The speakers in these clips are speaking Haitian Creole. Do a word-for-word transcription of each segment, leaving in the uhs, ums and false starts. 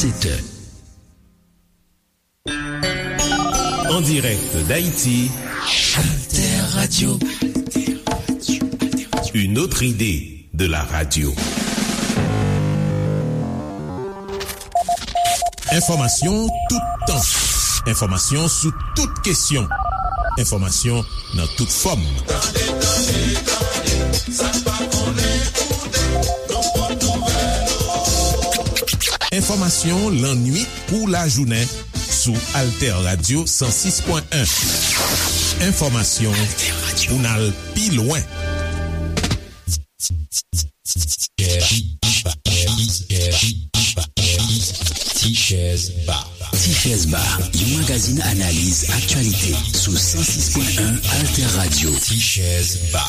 Sept heures. En direct d'Haïti, Alter Radio. Une autre idée de la radio. Enfòmasyon toutan. Enfòmasyon sou tout kesyon. Enfòmasyon nan tout fòm. Tande, tande, tande, sa n pa konnen koute, nou pot nouvèl. Enfòmasyon lannuit kou lajounen sou Alter Radio san sis pwen en. Enfòmasyon pou n al pi lwen. Tichèz Ba. Tichèz Ba, yon magazin analiz aktyalite sou san sis pwen en Alter Radio. Tichèz Ba.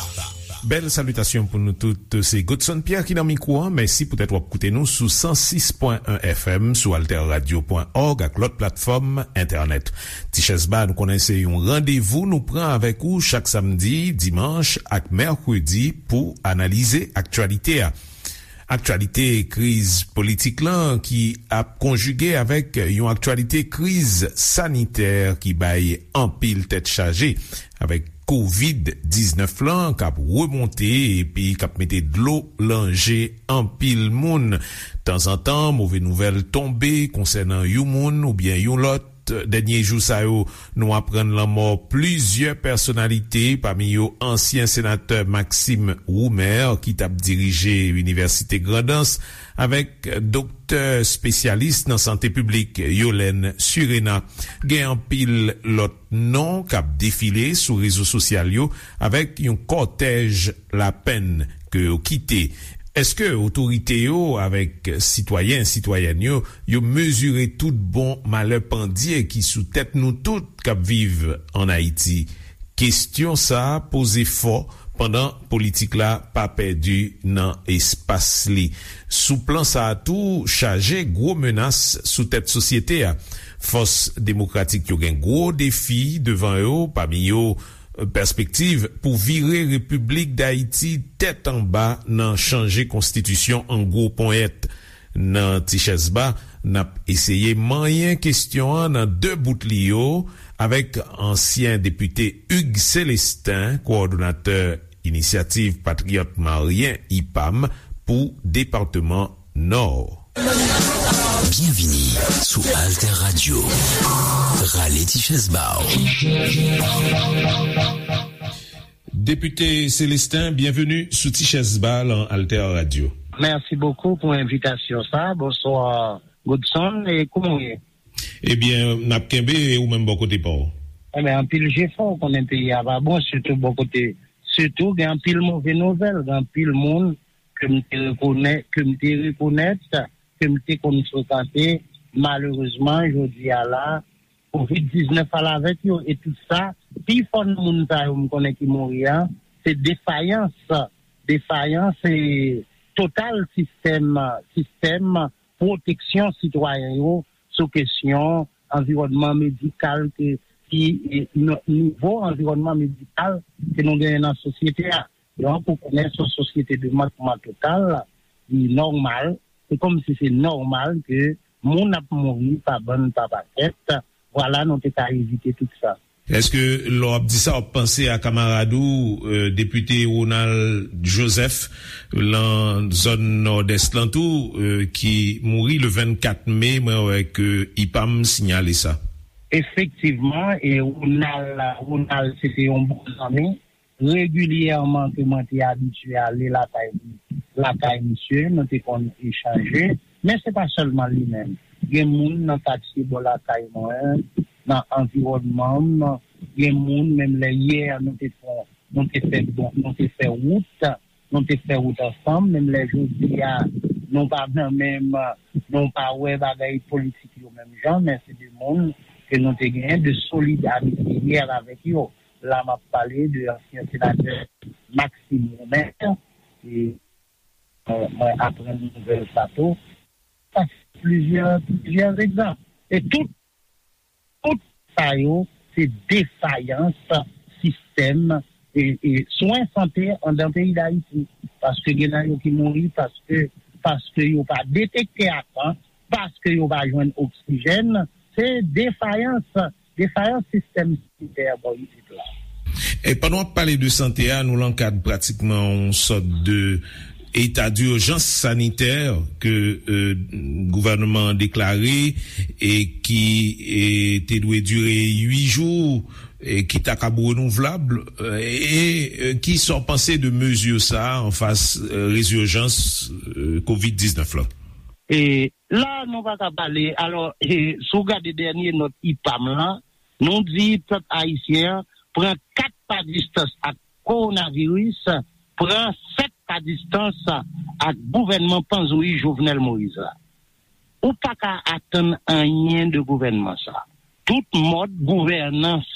Bèl salitasyon pou nou tout. Se Godson Pierre ki nan mikwo a. Mèsi poutèt w ap koute nou sou san sis pwen en F M, sou alter radio pwen òg ak lòt platfòm entènèt. Tichèz Ba, nou konnen se yon randevou nou pran avèk ou chak samdi, dimanch ak mèkredi pou analize aktyalite a. Aktyalite kriz politik lan ki ap konjige avèk yon aktyalite kriz sanitè ki bay anpil tèt chaje, avèk kovid diznèf lan k ap remonte epi k ap mete dlo lan je anpil moun. Tanzantan, move nouvèl tonbe konsènan yon moun oubyen yon lòt. Dènye jou sa yo, nou aprann lanmò plizyè pèsonalite, pami yo ansyen senatè Maxime Roumer, ki t ap dirije Inivèsite Grandans, avèk doktè espesyalis nan sante piblik, Yolène Surena. Gen anpil lòt non k ap defile sou rezo sosyal yo, avèk yon kòtèj lapenn ke yo kite. Èske otorite yo avèk sitwayen, sitwayèn yo, yo mezire tout bon malè pandye ki sou tèt nou tout k ap viv ann Ayiti? Kesyon sa a poze fò pandan politik la pa pèdi nan espas li. Sou plan sa a tou, chaje gwo menas sou tèt sosyete a. Fòs demokratik yo gen gwo defi devan yo, pami yo, pèspektiv pou vire Repiblik Dayiti tèt anba nan chanje konstitisyon an gwo ponyèt. Nan Tichèz Ba, n ap eseye manyen kesyon an nan de bout li yo avèk ansyen depite Hugues Célestin, kowòdonatè Inisyativ Patriyòt Maryen, ipam, pou depatman Nò. Byenvini sou Alter Radio. Rale ti chèz ba w. Depite Célestin, byenveni sou Ti Chèz Ba lan Alter Radio. Merci beaucoup pour invitation sa. Bonsoir Godson, e kouman w ye? Ebyen, n ap kenbe, e ou menm bò kote pa w? Ebyen, anpil jefò, ou konnen peyi a pa bon, sitou bò kote, sitou gen anpil move nouvèl, gen anpil moun ke m te rekonè-, ke m te rekonèt, ke m te konn frekante, malerezman, jodi a la, kovid diznèf al avèk yo, e tout sa, pi fò nan moun sa yo m konnen ki mouri a, se defayans, defayans e total sistèm, sistèm pwoteksyon sitwayen yo sou kesyon anviwònman medikal ke, ki, e, n-, nivo anviwònman medikal ke nou genyen nan sosyete a. Donk, ou konnen se yon sosyete de mankman total, li nòmal. Se kòmsi se nòmal ke moun ap mouri pa bann, pa pakèt. Vwala, nou te ka evite tout sa. Èske lè w ap di sa, w ap panse a kamarad ou, e, depite Ronald Joseph, lan zòn Nòdès lan tou, e, ki mouri le vennkat me, mwen wè ke ipam sinyale sa. Efektivman, e Ronald, Ronald, se te yon bon zanmi. Regilyèman ke mwen te abitye ale lakay, lakay misye, nou te konn echanje, men se pa sèlman li menm. Gen moun nan katye bò lakay mwen, nan anviwònman m, gen moun, menm lè yè nou te fè, nou te fè bon, nou te fè wout, nou te fè wout ansanm, menm lè jodi a, nou pa nan menm, nou pa wè bagay politik yo menm jan, men se de moun ke nou te genyen de solid amitye yè avèk yo. La, m ap pale de ansyen senatè Maxime Roumer, e mwen, mwen aprann nouvèl sa tou. Sa se plizyè, plizyè egzanp. E tout, tout sa yo, se defayans sistèm, e, e swen sante anndan peyi Dayiti. Paske gen nan yo ki mouri paske, paske yo pa detekte a tan, paske yo pa jwenn oksijèn, se defayans, defayans sistèm sanitè bò isit la. E pandan w ap pale de sante a, nou lan kad pratikman yon sòt de eta dijans sanitè ke, e, gouvènman an deklare e ki, e, te dwe dire uit jou, e ki ta kab renouvlab, e, e, e ki sa w panse de mezi sa a anfas, e, rezijans, e, kovid diznèf la? E la, nou pa ka pale. Alò, e, si w gade dènye nòt ipam lan, nou di pèp ayisyen an pran kat pa distans ak kowonaviris, pran sèt pa distans ak gouvènman panzouyi Jovenel Moïse la. Ou pa ka atann anyen de gouvènman sa. Tout mòd gouvènans,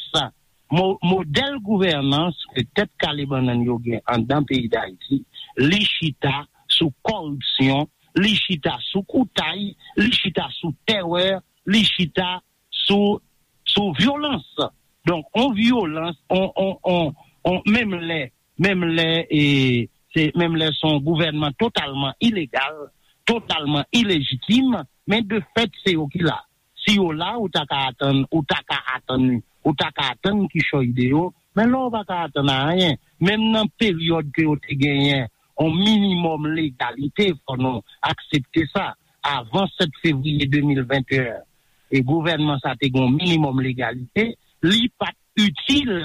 mo, modèl gouvènans ke tèt kale bannann yo gen anndan peyi Dayiti, li chita sou kòripsyon, li chita sou koutay, li chita sou tèrè, li chita sou, sou vyolans. Donk, on vyolans, on, on, on, on, menm lè, menm lè, e, se, menm lè se yon gouvènman totalman ilegal, totalman ilejitim, men de fèt, se yo ki la. Si yo la, ou ta ka atann, ou ta ka atann, ou ta ka atann kichòy de yo, men la, ou pa ka atann anyen. Menm nan peryòd ke yo te genyen yon minimòm legalite, fò nou aksepte sa. Avan sèt fevriye de mil venteyen, e gouvènman sa te gen yon minimòm legalite, li pa t itil,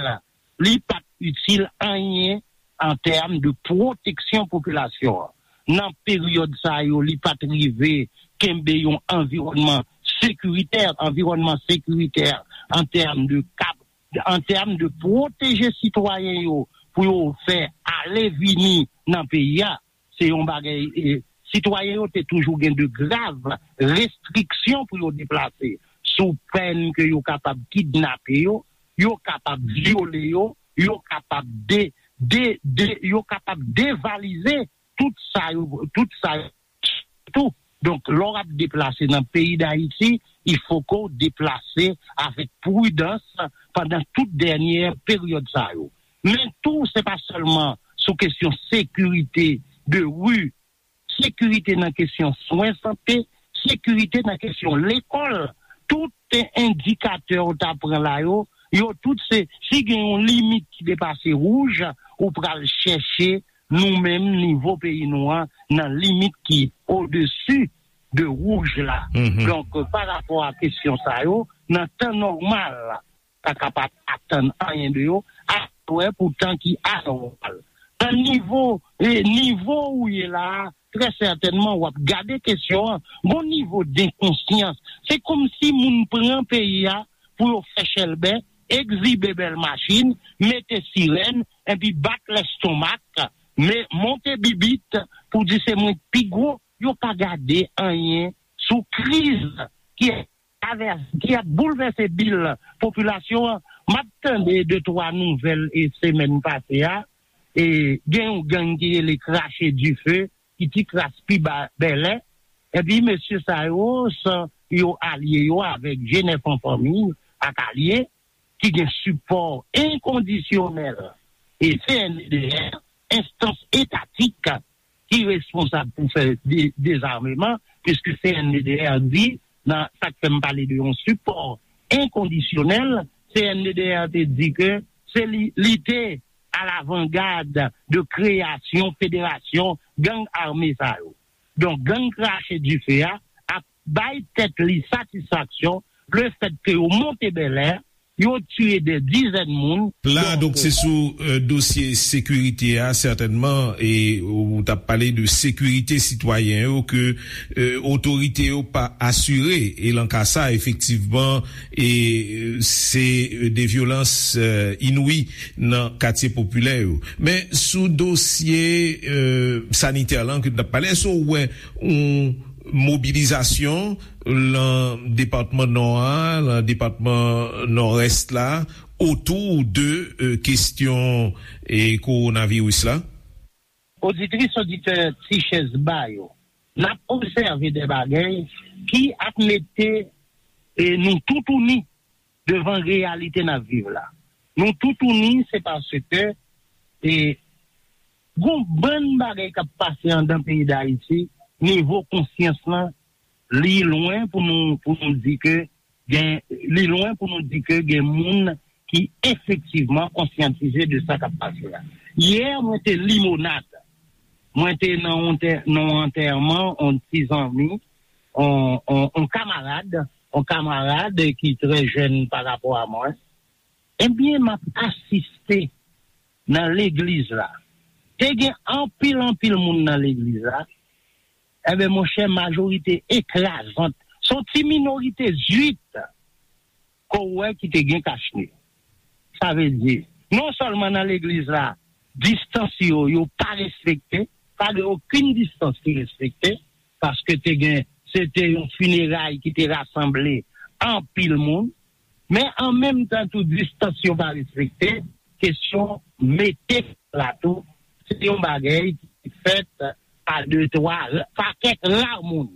li pa t itil anyen an tèm de pwoteksyon popilasyon an. Nan peryòd sa yo, li pa t rive kenbe yon anviwònman sekiritè, anviwònman sekiritè an tèm de kab, an tèm de pwoteje sitwayen yo pou yo fè ale vini nan peyi a. Se yon bagay, e, sitwayen yo te toujou gen de grav restriksyon pou yo deplase, sou pèn ke yo kapab kidnape yo, yo kapab vyole yo, yo kapab de, de, de, yo kapab devalize tout sa yo, tout sa yo tou. Donk, lè w ap deplase nan peyi Dayiti, il faut que w deplase avèk pridans pandan tout dènye peryòd sa yo. Men tou, se pa sèlman sou kesyon sekirite de ri, sekirite nan kesyon swen sante, sekirite nan kesyon lekòl. Tout endikatè ou ta pran la yo, yo tout se, si gen yon limit ki depase wouj, ou pral chèche nou menm nivo peyi nou an nan limit ki odesi de wouj la. Mhm. Donk, pa rapò a kesyon sa yo, nan tan nòmal, pa kapab atann anyen de yo, a wè pou tan ki anòmal. Nan nivo, e, nivo ou ye la a, trè sètènman, w ap gade kesyon an, gon nivo denkonsyans. Se kòmsi moun pran peyi a pou yo fè chèlbè, egzibe bèl machin, mete sirèn, epi bat lèstomak, men monte bibit pou di se mwen k pi gwo, yo pa gade anyen sou kriz ki ap travèse, ki ap boulvèse bil popilasyon an. M ap tande de twa nouvèl e semèn pase a, e gen yon gang ki rele Krache Dife, ki ti kras pi ba Bèlè. Epi mesye sa yo, san yo alye yo avèk G nèf an fanmi ak alye, ki gen sipò enkondisyonèl e C N D D R, enstans etatik ki responsab pou fè de-, dezameman, piske C N D D R di, nan sa k fè m pale de yon sipò enkondisyonèl, C N D D R te di ke se li, li te alavangad de kreyasyon federasyon gang ame sa yo. Donk, gang Krache Dife a ap bay tèt li satisfaksyon lefètke yo monte Bèlè, yo tiye dè dizèn moun. La, donk, donk, se sou, e, dosye sekirite a, sètènman, e ou t ap pale de sekirite sitwayen yo ke, e, otorite yo pa asire. E lan ka sa, efektivman, e, e, se, e, de vyolans, e, inwi nan katye popilè yo. Men sou dosye, e, sanitè lan ke n t ap pale, èske w wè yon mobilizasyon lan depatman Nò a, lan depatman Nòdès la, otou de, e, kesyon, e, kowonaviris la? Oditris, oditè Ti Chèz Ba yo, n ap obsève de bagay ki ap mete, e, nou toutouni devan reyalite n ap viv la. Nou toutouni, se paske, e, gon bann bagay k ap pase anndan peyi Dayiti, nivo konsyans lan Li lwen pou nou, pou nou di ke gen, li lwen pou nou di ke gen moun ki efektivman konsyantize de sa k ap pase a. Yè, mwen te Limonad. Mwen te nan yon tè-, nan yon antèman, yon ti zanmi, yon, yon, yon kamarad, yon kamarad ki trè jèn pa rapò a mwen. Ebyen, m ap asiste nan legliz la. Te gen anpil, anpil moun nan legliz la. Ebyen, monchè, majorite ekrazant, se yon ti minorite zwit ke w wè ki te gen kachne. Sa vle di, non sèlman nan legliz la, distans yo, yo pa respekte, pa gen okenn distans ki respekte, paske te gen, se te yon fineray ki te rasanble anpil moun, men an menm tan tou, distans yo pa respekte, kesyon mete la tou, se yon bagay ki fèt pa de, twa, pa kèk ra moun.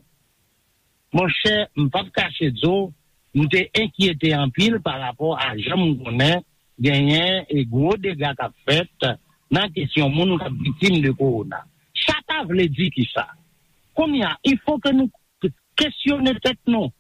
Monchè, m p ap kache di w, m te enkyete anpil pa rapò a jan m konnen genyen e gwo dega k ap fèt nan kesyon moun k ap viktim de kowona. Sa ta vle di kisa? Kounye a, il faut que nou kesyone tèt nou.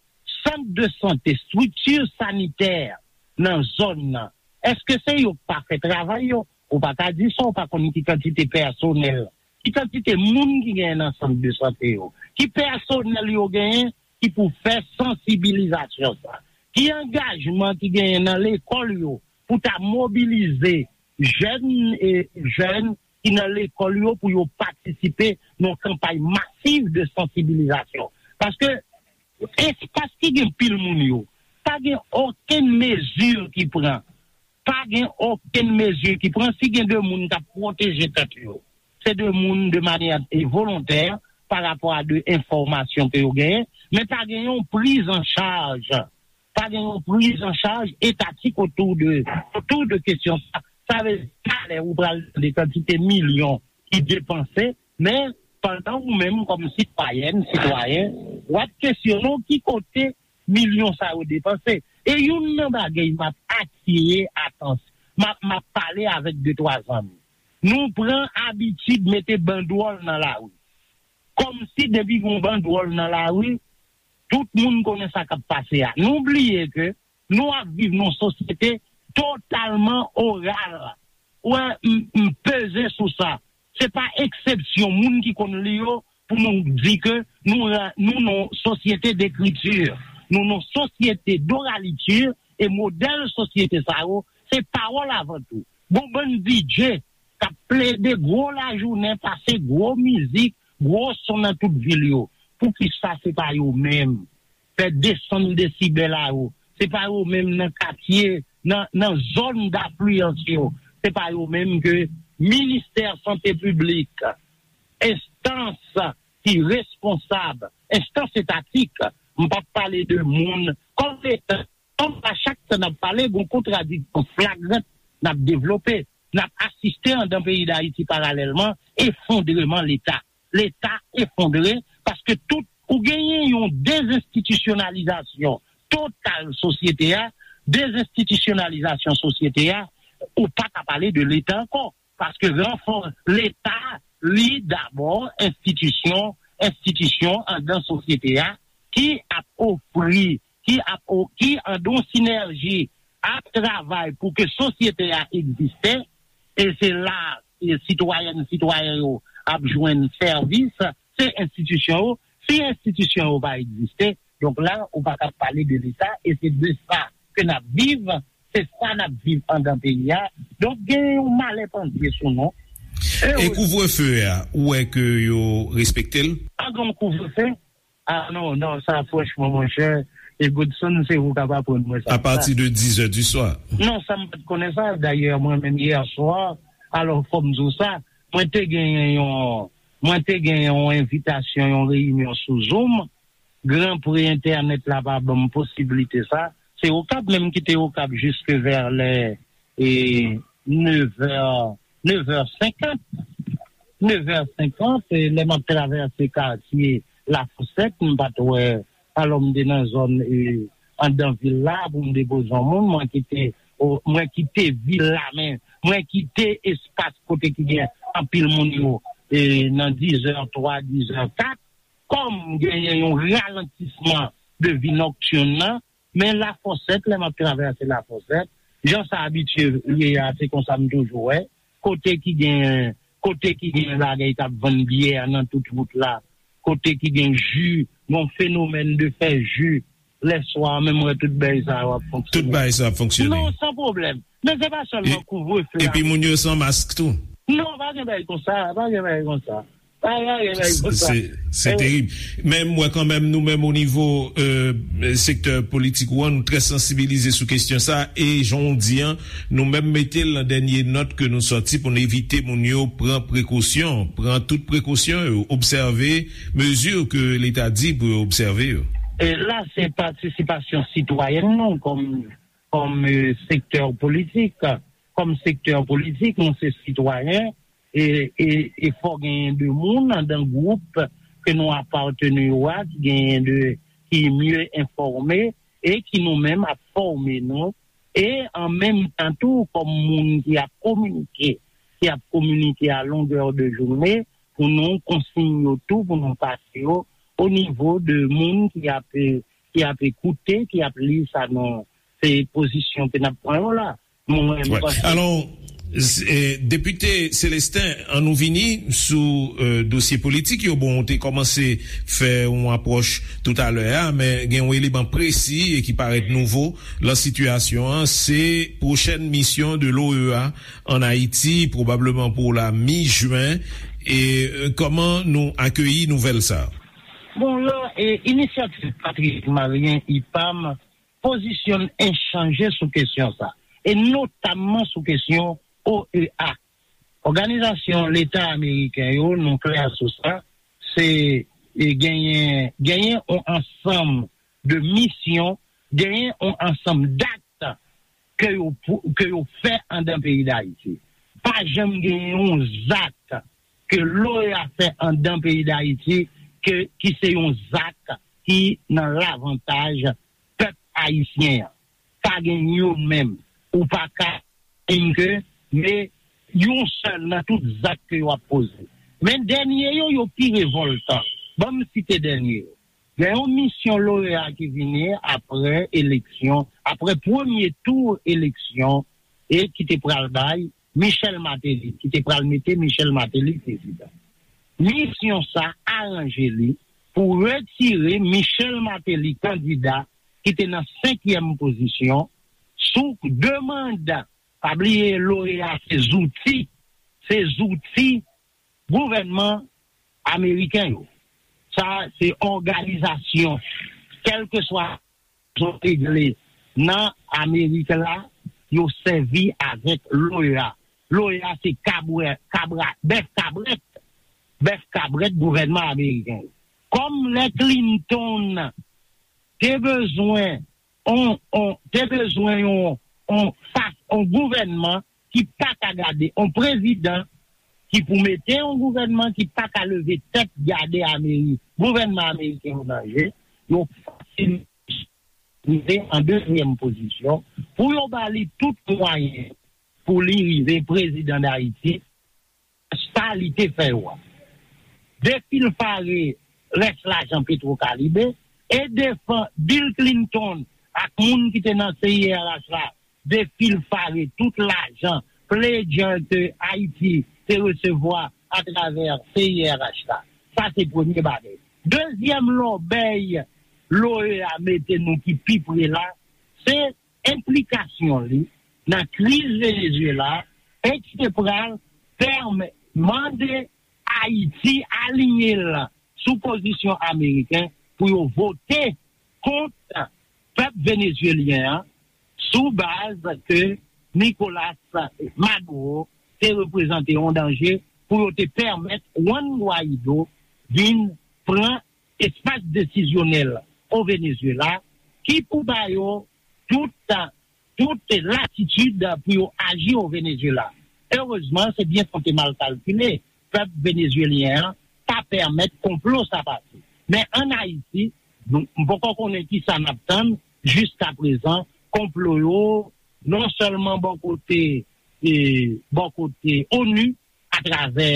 Sant de sante, estrikti sanitè nan zòn nan, èske se yo k pa fè travay yo? Ou pa ka di sa, ou pa konn ki kantite pèsonèl, ki kantite moun ki genyen nan sant de sante yo, ki pèsonèl yo genyen ki pou fè sansibilizasyon sa, ki angajman ki genyen nan lekòl yo pou ta mobilize jèn e jèn ki nan lekòl yo pou yo patisipe nan kanpay masiv de sansibilizasyon. Paske espas ki gen pil moun yo, pa gen okenn mezi ki pran. Pa gen okenn mezi ki pran. Si gen de moun k ap pwoteje tèt yo, se de moun de manyè e volontè pa rapò a de enfòmasyon ke yo genyen, men pa gen yon priz an chaj. Pa gen yon priz an chaj etatik otou de, otou de kesyon sa. Sa vle di, talè ou pral tande kantite milyon ki depanse, men pandan ou menm kòm sitwayèn, sitwayen, w ap kesyone w ki kote milyon sa yo depanse. E youn nan bagay m ap atire atans-, m ap, m ap pale avèk de twa zanmi. Nou pran abitid mete bandwòl nan lari. Kòmsi depi gen yon bandwòl nan lari, tout moun konnen sa k ap pase a. Nou bliye ke nou ap viv nan yon sosyete totalman oral. Ou wè, m, m peze sou sa. Se pa eksepsyon moun ki konn li yo pou nou di ke nou, nou nan yon sosyete dekriti. Nou nan yon sosyete doraliti e modèl sosyete sa yo, se pawòl avan tou. Gon bann D J k ap plede gwo lajounen, pase gwo mizik, gwo son nan tout vil yo. Poukisa se pa yo menm fè desann desibèl a yo? Se pa yo menm nan katye, nan, nan zòn dafliyans yo. Se pa yo menm ke Ministè Sante Piblik, enstans ki responsab, enstans etatik, m p ap pale de moun, kòm Leta, kòm a chak tan n ap pale, gon kontradiksyon flagrant n ap devlope. N ap asiste anndan peyi Dayiti paralèlman efondreman Leta. Leta efondre paske tout, ou genyen yon dezenstitisyonalizasyon total sosyete a, dezenstitisyonalizasyon sosyete a, ou pa ka pale de Leta ankò. Paske ranfò-, Leta, li dabò enstitisyon, enstitisyon anndan sosyete a ki ap ofri, ki ap o-, ki anndan yon sinèji ap travay pou ke sosyete a egziste, e se la, e sitwayèn, sitwayen yo ap jwenn sèvis, se enstitisyon yo. Si enstitisyon yo pa egziste, donk la, ou pa ka pale de Leta, e se de sa ke n ap viv, se sa n ap viv anndan peyi a. Donk, gen yon malè pandye sou nou. E kouvrefe a, ou wè ke yo respekte l? Pa gen yon kouvrefe? Ah non, non, sa franchman, monchè, e Godson, se ou k ap aprann mwen sa. Apati de dizè di swa. Non, sa m pa t konnen sa. Dayè, mwen menm, yè swa, alò, fò m di w sa, mwen te genyen yon, mwen te genyen yon envitasyon, yon reyinyon sou Zoom. Gran pre entènèt la pa ban m posiblite sa. Se Okap menm ki te Okap jiske vè lè, e, nevè, nevè senkant. Nevè senkant, e, lè m ap travèse katye Lafosèt, m pa t wè, alò m te nan zòn, e, anndan vil la pou m depoze yon moun, mwen kite, o, mwen kite vil la, men mwen kite espas kote ki gen anpil moun yo, e, nan dizè twa, dizè kat, Pam genyen yon ralantisman de vi nòktin nan, men Lafòsèt, lè m ap travèse Lafòsèt, jan sa abitye ye a, se konsa m toujou wè, kote ki gen, kote ki gen bagay k ap vann byè nan tout wout la, kote ki gen ji, yon fenomèn de fè ji, lèswa, menm wè tout bagay sa yo ap fonksyone. Tout bagay sa ap fonksyone. Non, san pwoblèm. Men se pa sèlman kouvrefe a. Epi moun yo san mask tou. Non, pa gen bagay konsa, pa gen bagay konsa. Pa gen bagay konsa. Se se terib. Men m wè kanmenm nou menm o nivo euh, sektè politik ou an, nou trè sansibilize sou kesyon sa. E jan w di an, nou menm mete l nan dènye nòt ke nou sòti pou n evite moun yo pran prekosyon, pran tout prekosyon yo, obsève mezi ke Leta di pou yo obsève yo. E la, se patisipasyon sitwayèn nou kòm kòm euh, sektè politik. Kòm sektè politik, nou se sitwayen, e, e, e fò genyen de moun andan gwoup ke nou apateni yo a, ki genyen de, ki mye enfòme, e ki nou menm ap fòme nou, e an menm tan tou, kòm moun ki ap kominike, ki ap kominike a longè de jounen, pou nou konsiy yo tou, pou nou pase yo o nivo de moun ki ap, ki ap ekoute, ki ap li sa nou, se pozisyon ke n ap pran yo la. Mwen, m panse. Alò, Depite Celestin, an nou vini sou euh, dosye politik yo. Bon, ou te kòmanse fè yon apwòch toutalè a, men gen yon eleman presi e ki parèt nouvo lan sitiyasyon an, se pwochèn misyon de l'OEA an Ayiti, pwobableman pou la mi jen. E euh, kòman nou akeyi nouvèl sa a? Bon, la, e, inisyativ Patriyòt Malyen, ipam, pozisyonn en chanje sou kesyon sa, e notamman sou kesyon OEA. Òganizasyon Leta Ameriken yo, nou klè sou sa, se e, genyen, genyen yon ansanm de misyon, genyen yon ansanm dat ke yo, ke yo fè andan peyi Dayiti. Pa janm genyen yon zak ke l'OEA fè andan peyi Dayiti ke, ki se yon zak ki nan lavantaj pèp ayisyen an. Pa gen youn menm. Ou pa ka menm ke, men yon sèl nan tout zak ke yo ap poze. Men dènye yo, yo pi revòltan. Ban m site dènye yo. Gen yon misyon l'OEA ki vini apre eleksyon, apre premye tou eleksyon, e ki te pral bay Michel Martelly, ki te pral mete Michel Martelly prezidan. Misyon sa aranje li pou retire Michel Martelly kandida ki te nan senkyèm pozisyon sou de manda. Pa bliye, l'OEA se zouti, se zouti gouvènman ameriken yo. Sa se òganizasyon, kèlkeswa zon regle nan Amerik la, yo sèvi avèk l'OEA. L'OEA se kabwè, kabra, bèf kabrèt, bèf kabrèt gouvènman ameriken. Kòm lè Clinton te bezwen on, on, te bezwen yon, on, fas, on gouvènman ki pa ka gade, on prezidan ki pou mete yon gouvènman ki pa ka leve tèt gade Amerik, gouvènman ameriken yo nan je, yo fasil rive an dezyèm pozisyon pou yo ba li tout mwayen pou li rive prezidan Dayiti, sa li te fè yo a. Defilfare rès lajan Petwokalibe e defann Bill Clinton ak moun ki te nan C I R H la defilfare tout lajan pledger ke Ayiti te resevwa atravè C I R H la. Sa se premye bagay. Dezyèm lòbèy l'OEA mete nou ki pi pre la, se enplikasyon li nan kriz Venezuela e ki te pral pèmèt mande Ayiti aliyen l sou pozisyon ameriken pou yo vote kont pèp venezuelyen an sou baz ke Nicolas Maduro te reprezante yon danje pou yo te pèmèt Juan Guaido vin pran espas desizyonèl o Venezuela ki pou ba yo tout, tout latitid pou yo aji o Venezuela. Erezman, se byen sa te mal kalkile. Pèp venezuelyen an pa pèmèt konplo sa pase. Men ann Ayiti, nou, m poko konnen kisa n ap tann. Jiska prezan, konplo yo, non sèlman bò kote, e, bò kote onu, atravè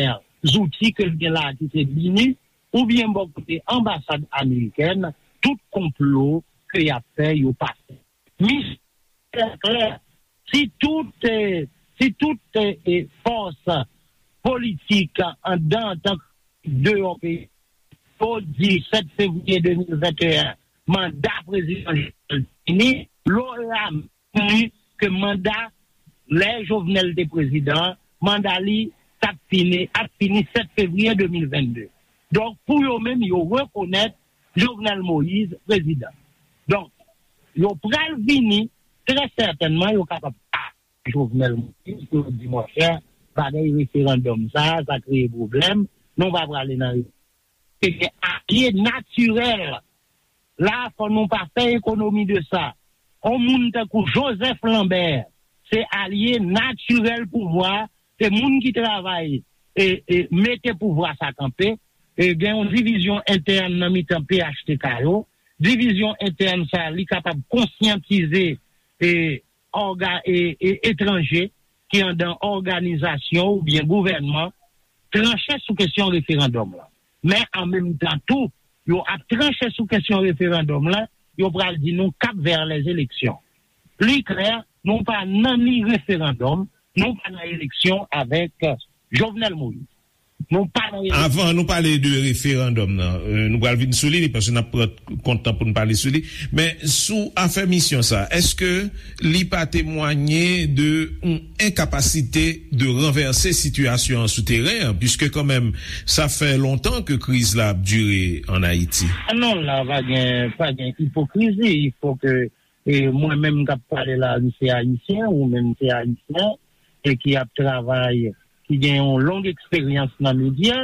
zouti ke l gen la ki se BINUH, oubyen bò kote anbasad amerikèn, tout konplo ke y ap fè, yo pase. Misyon klè, si tout, eh, si tout, eh, eh, fòs politik anndan antanke deyò peyi, yo di sèt fevriye de mil venteyen, manda prezidan Jovenel fini, lora di ke manda lè Jovenel te prezidan, manda li t ap fini, ap fini sèt fevriye de mil vennde. Donk, pou yo menm, yo rekonèt Jovenel Moïse prezidan. Donk, yo pral vini, trè sètènman, yo kapab Jovenel Moïse, pou yo di, monchè, bagay referandòm sa, sa kreye pwoblèm, nou pa prale nan. Se gen alye natirèl. La, fò nou pa fè ekonomi de sa. On moun tankou Joseph Lambert, se alye natirèl pouvwa, se moun ki travay e, e mete pouvwa sa kanpe. E gen yon divizyon entèn nan mitan P H T K yo. Divizyon entèn sa, li kapab konsyantize e, òga, e, e etranje ki anndan òganizasyon oubyen gouvènman tranche sou kesyon referandòm lan. Men an menm tan tou, yo ap tranche sou kesyon referandòm lan, yo pral di nou k ap vè lèzeleksyon. Li klè, nou pa nan ni referandòm, nou pa nan eleksyon avèk Jovenel Moïse. Nou pa nan eleksyon. Avan nou pale de referandòm nan, euh, nou pral vin sou li, paske n ap pran kont tan pou n pale sou li. Men sou afè misyon sa, èske li pa temwanye de yon enkapasite de ranvèse sitiyasyon an sou teren an, piske kanmenm, sa fè lontan ke kriz la ap dire ann Ayiti? Ah non, la pa gen, pa gen ipokrizi. Il faut que, e mwen menm k ap pale la, m se ayisyen, ou menm se ayisyen, e ki ap travay, ki gen yon long eksperyans nan medya,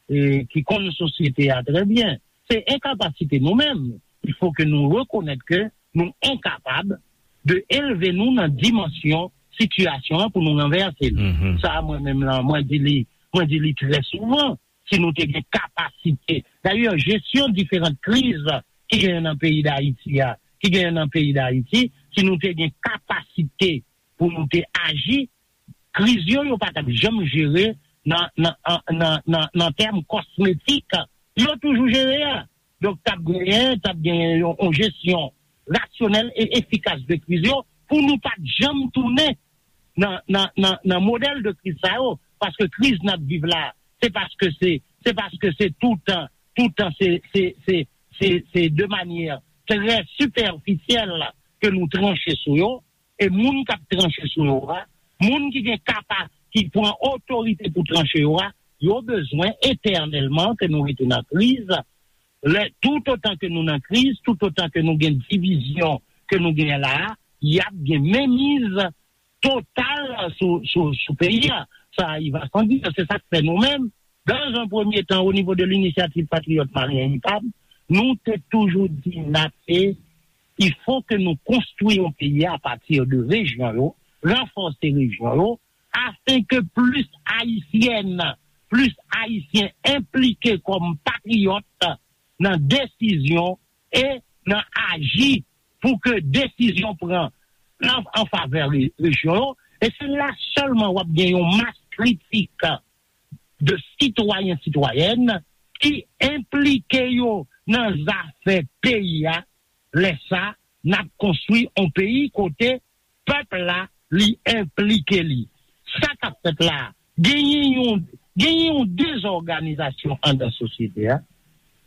e ki konn sosyete a trè byen. Se enkapasite nou menm. Il faut que nou rekonèt ke nou enkapab de elve nou nan dimansyon sitiyasyon an pou nou ranvèse l. Mhm. Sa, mwen menm lan, mwen di li, mwen di li trè souvan, si nou te gen kapasite. Dayè, jesyon diferan kriz ki genyen nan peyi Dayiti a, ki genyen nan peyi Dayiti, si nou te gen kapasite pou nou te aji, kriz yo, yo pa t ap janm jere nan, nan, an- nan, nan, nan tèm kosmetik. Yo toujou jere a. Donk, t ap genyen, t ap genyen yon, yon jesyon rasyonèl e efikas de kriz yo pou nou pa t janm tounen nan, nan, nan, nan modèl de kriz sa yo. Paske kriz n ap viv la, se paske se, se paske se toutan, toutan se, se, se, se, se de manyè trè sipèfisyèl ke nou tranche sou yo. E moun k ap tranche sou yo a, moun ki gen kapa, ki pran otorite pou tranche yo a, yo bezwen etènèlman ke nou rete nan kriz. Lè, toutotan ke nou nan kriz, toutotan ke nou gen divizyon ke nou gen la a, y ap gen menmiz total sou, sou, sou peyi a. Sa, il va sans dire, se sa k fè nou menm, dans un premier temps, au niveau de l'Initiative Patriote Malien, I P A M, nou te toujou di n ap, e, il faut que nou konstwi yon peyi a pati de rejyon yo, ranfòse rejyon yo, afin que plis Ayisyèn, plis Ayisyen enplike kòm patriyòt nan desizyon e nan aji pou ke desizyon pran an, an favè re- rejyon yo. E se la sèlman w ap gen yon mas kritik de sitwayen, sitwayèn ki enplike yo nan zafè peyi a. Lè sa, n ap konstwi yon peyi kote pèp la, li enplike li. Sa k ap fèt la, genyen yon, genyen yon dezòganizasyon anndan sosyete a.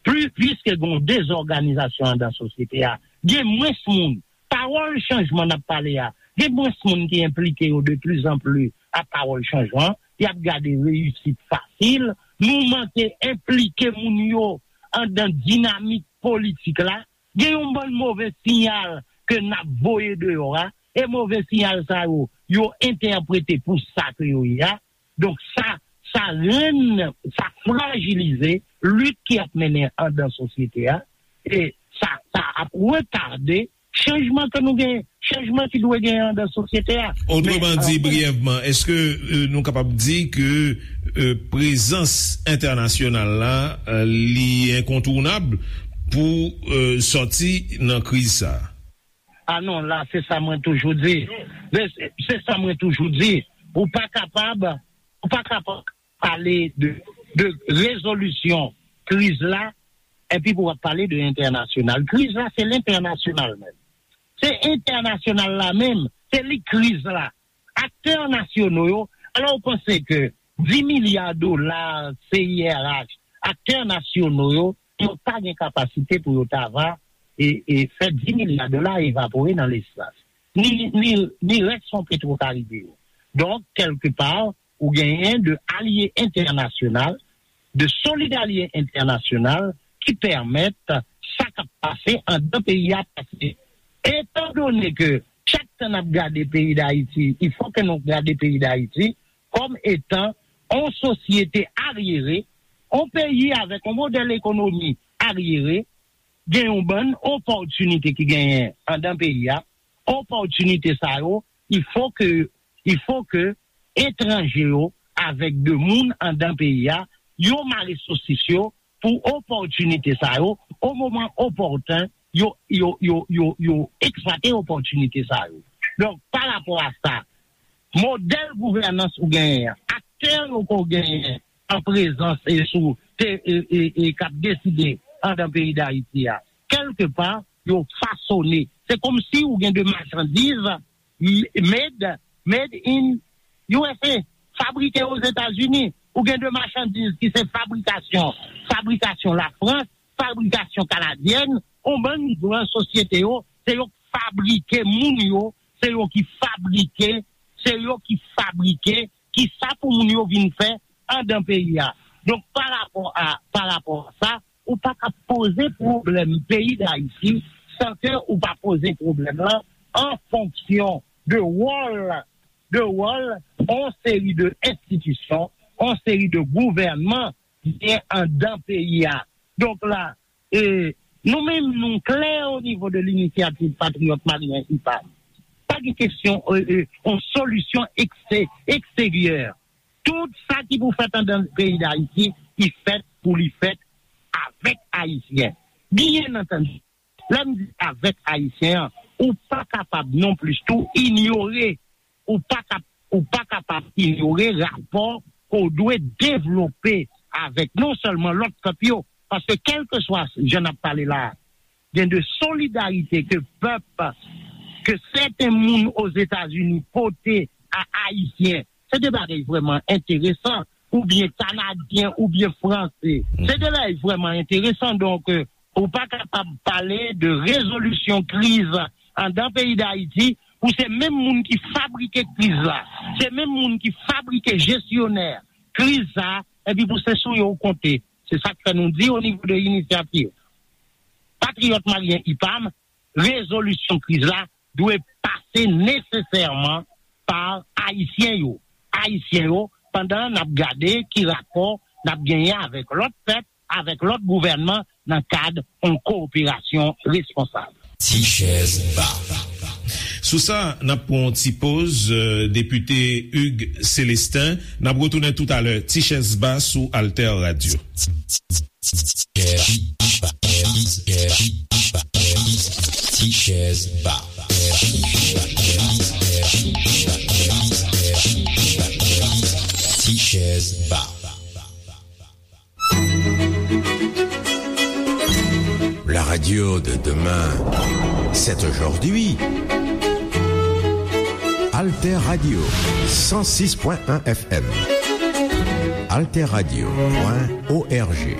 Pli, piske gen yon dezòganizasyon anndan sosyete a, gen mwens moun. Pawòl chanjman n ap pale a, gen mwens moun ki enplike yo de pli zan pli ak pawòl chanjman. Y ap gade reyisit fasil. Nou manke enplike moun yo anndan dinamik politik la. Gen yon bann move siyal ke n ap voye deyò a, e move siyal sa yo, yo entèprete pou sa ke yo ye a. Donk sa, sa rann, sa frajilize lit ki ap mennen anndan sosyete a, e sa, sa ap retade chanjman ke nou gen, chanjman ki dwe genyen anndan sosyete a. Otreman di, briyèvman, èske, euh, nou kapab di ke, euh, prezans entènasyonal la, euh, li enkontounab pou, euh, sòti nan kriz sa a? Ah non, la, se sa mwen toujou di. Se, se sa mwen toujou di. Ou pa kapab, ou pa kapab pale de, de rezolisyon kriz la, epi pou w ap pale de entènasyonal. Kriz la, se lentènasyonal menm. Se entènasyonal la menm, se li kriz la. Aktè nasyono yo, alò ou panse ke dis milya dola C I R H, aktè nasyono yo, yo pa gen kapasite pou yo ta va e, e fè dis milya dola evapore nan lespas. Ni, ni, ni rès fon Petro Karibe yo. Donk, kèlkepa, ou genyen de alye entènasyonal, de solid alye entènasyonal ki pèmèt sa k ap pase anndan peyi a pase. Etandone ke chak tan n ap gade peyi Dayiti, il faut que nou gade peyi Dayiti kòm etan on sosyete aryere, on peyi avèk on modèl ekonomi aryere, gen yon bann opòtinite ki genyen anndan peyi a, opòtinite sa yo, il faut que, il faut que etranje yo avèk de moun anndan peyi a, yo mare sosis yo pou opòtinite sa yo, o moman opòten, yo, yo, yo, yo, yo eksplwate opòtinite sa yo. Donk, pa rapò a sa, modèl gouvènans ou genyen an, aktè yo ke w genyen an prezans e sou te, e, e, e k ap deside anndan peyi Dayiti a, kèlkepa, yo fasone. Se kòmsi ou gen de machandiz m- made, made in U S A, fabrike Ozetazini. Ou gen de machandiz ki se fabrikasyon, fabrikasyon Lafrans, fabrikasyon kanadyèn, on bann gran sosyete yo, se yo k fabrike moun yo, se yo ki fabrike, se yo ki fabrike, ki sa pou moun yo vin fè anndan peyi a. Donk, pa rapò a, pa rapò a sa, ou pa ka poze pwoblèm peyi Dayiti san ke ou pa poze pwoblèm lan an fonksyon de wòl, de wòl on seri de enstitisyon, on seri de gouvènman ki gen anndan peyi a. Donk la, e, nou menm, nou klè o nivo de Linisyativ Patriyòt Malyen, I P A M. Pa gen kesyon, e, e, on solisyon ekste- eksteryè. Tout sa ki pou fèt anndan peyi Dayiti, ki fèt pou li fèt avèk Ayisyen. Byen antandi, lè m di avèk Ayisyen an, ou pa kapab non plis tou inyore, ou pa kap- ou pa kapab inyore rapò ke w dwe devlope avèk non sèlman lòt pèp yo, paske kèlkeswa jan n ap pale la a, gen de solidarite ke pèp, ke sèten moun Ozetazini pote a Ayisyen. Se de bagay vrèman enteresan, oubyen Kanadyen, oubyen Franse. Se de bagay vrèman enteresan. Donk, e, ou pa kapab pale de rezolisyon kriz anndan peyi Dayiti pou se menm moun ki fabrike kriz la, se menm moun ki fabrike jesyonè kriz sa, epi pou se sou yo w konte. Se sa k fè nou di o nivo de Inisyativ Patriyòt Malyen, I P A M, rezolisyon kriz la dwe pase nesesèman pa Ayisyen yo. Ayisyen yo, pandan n ap gade ki rapò n ap genyen avèk lòt pèp, avèk lòt gouvènman nan kad yon kowoperasyon responsab. Ti chèz ba. Sou sa, n ap pran yon ti poz, euh, depite Hugues Célestin. N ap retounen toutalè. Ti chèz ba sou Alter Radio. Ti chèz ba. Ti chèz ba. La radio de demain, c'est aujourd'hui. Alter Radio, cent six point un F M. Alter Radio point O R G.